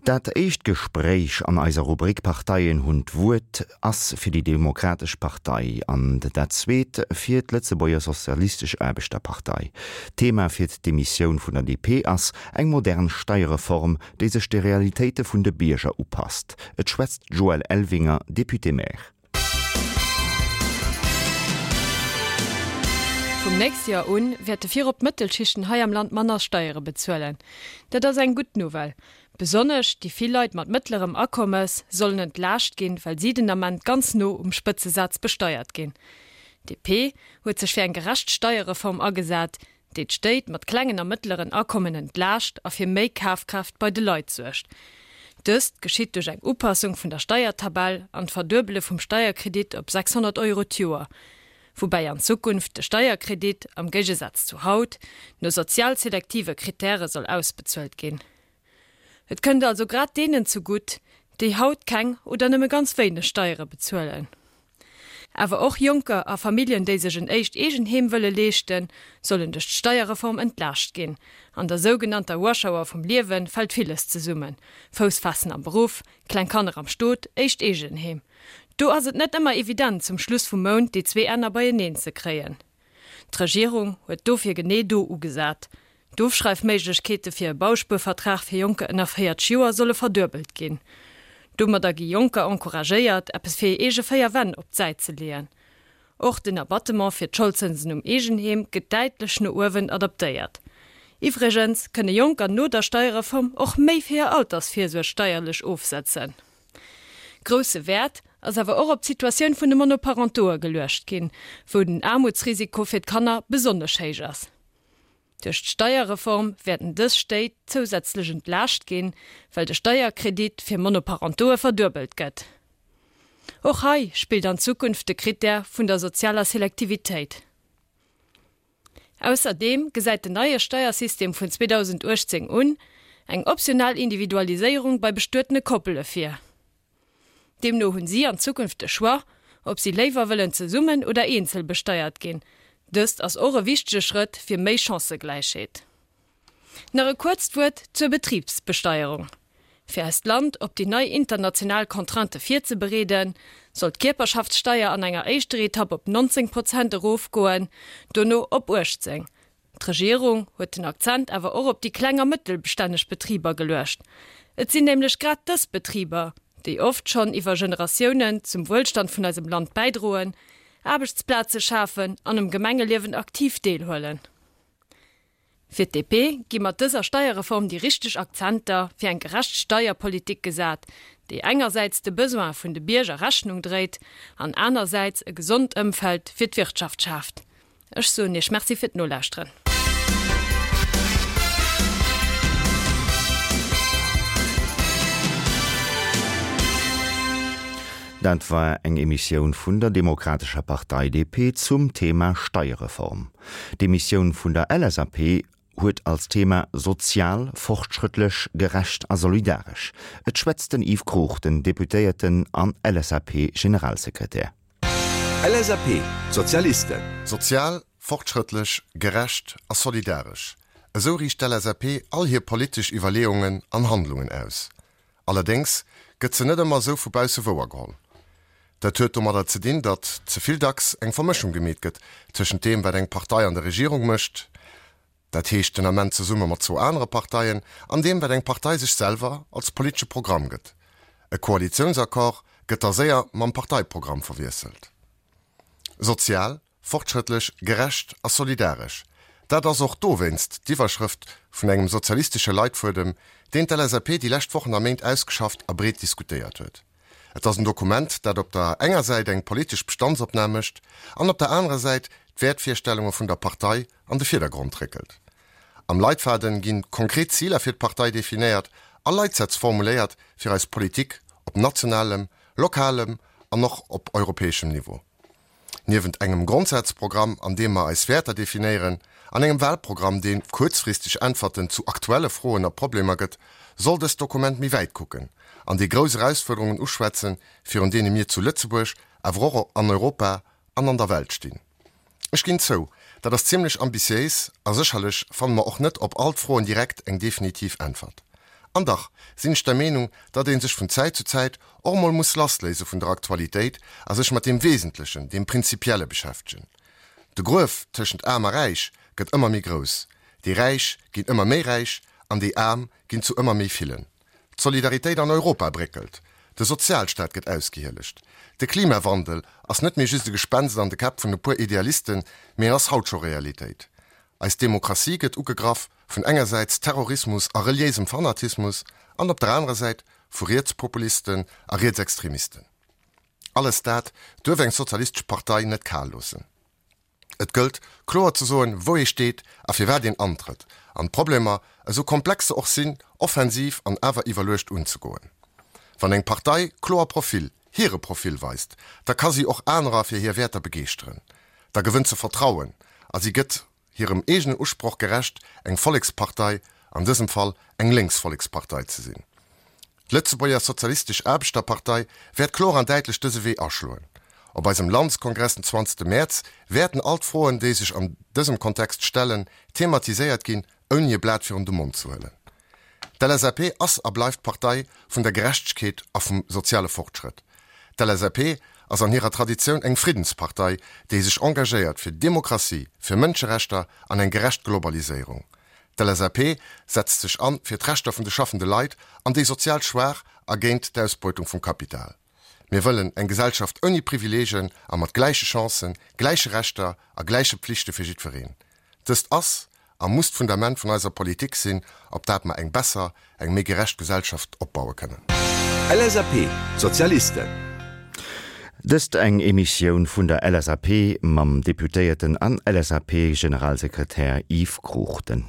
Dat éischt Gespréich an eiser Rubrik Parteien hunn d'Wuert ass fir déi Demokratesch Partei an dat zweet fir d'Lëtzebuerger Sozialistesch Aarbechterpartei. D'Thema fir d'Demissioun vun der DP ass eng modern Steierreform, déi sech de Realitéite vun de Bierger upasst. Et schwätzt d'Joëlle Elvinger, Députée-maire. Vum nächste Joer un wäerte virop d'Mëttelschichten hei am Land manner Steiere bezuelen. Dat ass eng gutt Nouvelle. Besonnesch déi vill Leit mat mëttlerem Akommes sollen entlaascht ginn, well si den Ament ganz no um Spëtzesaz besteiert ginn. DP huet sech fir eng gerecht Steierreform agesat, déi d'Stéit mat klengen a mëttleren Akommen entlaascht a fir méi Kafkraaft bei de Leit suergt. Dëst geschitt duerch eng Upassung vun der Steiertabell an d'Verduebele vum Steierkredit op 600 Euro d'Joer, woubäi an Zukunft de Steierkredit, am Géigesaz zu haut, no sozial selektive Krittäre soll ausbezuelt ginn. Et kënnt also grad deenen zegutt, déi haut keng oder nëmme ganz wéineg Steiere bezuelen. Awer och Jonker a Familljen, déi sech en éischt Eegenheem wëlle leeschten, sollen duerch d'Steierreform entlaascht ginn. An der sougenannter Rush Hour vum Liewe fält villes zesummen, Fouss faassen am Beruff, kleng Kanner am Stot, éischt Eegenheem. Do ass et net ëmmer evident, zum Schluss vum Mount déi zwee Enner beieneen ze kréien. D'Regierung huet dofir genee do ugesat. D'Ofschreifméiglechkeete fir e Bauspuervertrag fir Jonker ënner 40 Joer solle verduebelt ginn. Domadder gi Jonker encouragéiert, eppes fir hir eege 4 Wänn op d'Säit ze leeën. Och den Abattement fir d'Scholdzënsen um Eegenheem gëtt däitlech no uewen adaptéiert. Iwwregens kënne Jonker no der Steierreform och méi fir hir Altersvirsuerg steierlech ofsetzen. Grousse Wäert ass awer och op d'Situatioun vun de Monoparentoe geluecht ginn, wou den Aarmutsrisiko fir d'Kanner besonnesch héich ass. Duerch d'Steierreform wäerten dës Stéit zousätzlech entlaascht ginn, well de Steierkredit fir Monoparentoe verduebelt gëtt. Och hei spillt an Zukunft de Krittär vun der sozialer Selektivitéit. Ausserdeem gesäit den neie Steiersystem vun 2018 un eng optional Individualiséierung bei bestuetene Koppele vir. Deemno hunn si an Zukunft de Choix, ob si léiwer wëllen zesummen oder eenzel besteiert ginn. Dëst ass och e wichtege Schrëtt fir méi Chancëgläichheet. Nach e kuerzt Wuert zur Betribsbesteierung. Fir eist Land op déi nei international Contraintë virzebereeden, soll d'Kierperschaftssteier an enger éischter Etapp op 19 Prozent erofgoen, dono op 18. D'Regierung huet den Akzent awer och op déi kleng a mëttelstänneg Betriber geluecht. Et sinn nämlech grad dës Betriber, déi oft schonn iwwer Generatiounen zum Wuelstand vun eisem Land bäidroen, Aarbechtsplaze schafen an um Gemengeliewen aktiv deelhuelen. Fir d'DP gi mat dëser Steierreform déi richteg Akzenter fir eng gerecht Steierpolitik gesat, déi engersäits de Besoin vun de Bierger Rechnung dréit an anersäits e gesond Ëmfeld fir d'Wirtschaft schaaft. Ech soen Iech Merci fir d'Nolauschteren. Dat war eng Emissioun vun der Demokratescher Partei, DP, zum Thema Steierreform. D'Emissioun vun der LSAP huet als Thema Sozial, fortschrëttlech, gerecht a solidaresch. Et schwätzt den Yves Cruchten, Deputéierten an LSAP-Generalsekretär. LSAP, D'Sozialisten. Sozial, fortschrëttlech, gerecht a solidaresch, esou riicht d'LSAP all hir politesch Iwwerleeungen an Handlungen aus. Allerdéngs gëtt se net ëmmer esou vu bausse wouergeholl. Dat huet domadder ze dinn, datt ze vill dacks eng Vermëschung gemeet gëtt tëschent deem, wat eng Partei an der Regierung mécht, dat heescht den Ament zesumme mat zwou anere Parteien, an deem, wat eng Partei sech selwer als politesche Programm gëtt. E Koalitiounsaccord gëtt da séier mam Parteiprogramm verwiesselt. Sozial, fortschrëttlech, gerecht a solidaresch, dat ass och dowéinst d'Iwwerschrëft vun engem sozialistesche Leitfuedem, deen d'LSAP déi lescht Wochen a Méint ausgeschafft a breet diskutéiert huet. Et ass en Dokument, dat op der enger Säit eng politesch Bestandsopnam mécht an op der anerer Säit d'Wäertvirstellunge vun der Partei an de Virdergrond réckelt. Am Leitfaden ginn konkret Ziler fir d'Partei definéiert a Leitsätz formuléiert fir eis Politik op nationalem, lokalem an och op europäeschem Niveau. Niewent engem Grondsazprogramm, an deem mer eis Wäerter definéieren, an engem Wahlprogramm, dee kuerzfristeg Äntwerten zu aktuelle Froen a Problemer gëtt, soll dëst Dokument méi wäit kucken an déi grouss Erausfuerderungen uschwätzen, virun deene mir zu Lëtzebuerg, awer och an Europa an an der Welt stinn. Ech ginn zou, dat ass zimlech ambitiéis a sécherlech fanne mer och net op all d'Froen direkt eng definitiv Äntwert. An dach sinn ech der Meenung, datt ee sech vun Zäit zu Zäit och emol muss lassléise vun der Aktualitéit a sech mat deem Wesentlechen, deem Prinzipielle beschäftegen. De Gruef tëschent Aarm a Räich gëtt ëmmer méi grouss. Déi Räich ginn ëmmer méi räich an déi Aarm ginn zu ëmmer méi villen. D'Solidaritéit an Europa bréckelt. De Sozialstaat gëtt ausgehielegt. De Klimawandel ass net méi just e Gespenst an de Käpp vun e puer Idealisten, mee en ass haut scho Realitéit. Eis Demokratie gëtt ugegraff vun engersäits Terrorismus a reliéisem Fanatismus an op der anerer Säit vu Rietspopulisten a Rietsextremisten. Alles dat duerf eng sozialistesch Partei net kal loossen. Et gëllt, kloer ze soen, wou ee steet a firwat een antrëtt, an d'Problemer, esou komplex se och sinn, offensiv an awer iwwerluecht unzegoen. Wann eng Partei kloer Profil, hire Profil weist, da ka si och anerer fir hir Wäerter begeeschteren. Da gewënnt se Vertrauen a si gëtt hirem eegenen Usproch gerecht, eng Vollekspartei, an dësem Fall eng lénks Vollekspartei ze sinn. D'Lëtzebuerger Sozialistesch Aarbechterpartei wäert kloer an däitlech dëse Wee aschloen. Op eisem Landeskongress den 20 Mäerz wäerten all d'Froen, déi sech an dësem Kontext stellen, thematiséiert ginn, ouni e Blat virun de Mond ze huelen. D'LSAP ass a bleift d'Partei vun der Gerechtegkeet a vum soziale Fortschrëtt. D'LSAP ass an hirer Traditioun eng Friddenspartei, déi sech engagéiert fir Demokratie, fir Mënscherechter an eng gerecht Globaliséierung. D'LSAP setzt sech an fir d'Rechter vun de schaffende Leit an déi sozial Schwaach a géint d'Ausbeutung vum Kapital. Mir wëllen eng Gesellschaft ouni Privileegen a mat gläiche Chancen, gläiche Rechter a gläiche Pflichte fir jiddwereen. Dëst ass a muss d'Fundament vun eiser Politik sinn, op dat mer eng besser, eng méi gerecht Gesellschaft opbaue kënnen. LSAP, D'Sozialisten. Dëst eng Emissioun vun der LSAP mam Deputéierten an LSAP-Generalsekretär Yves Cruchten.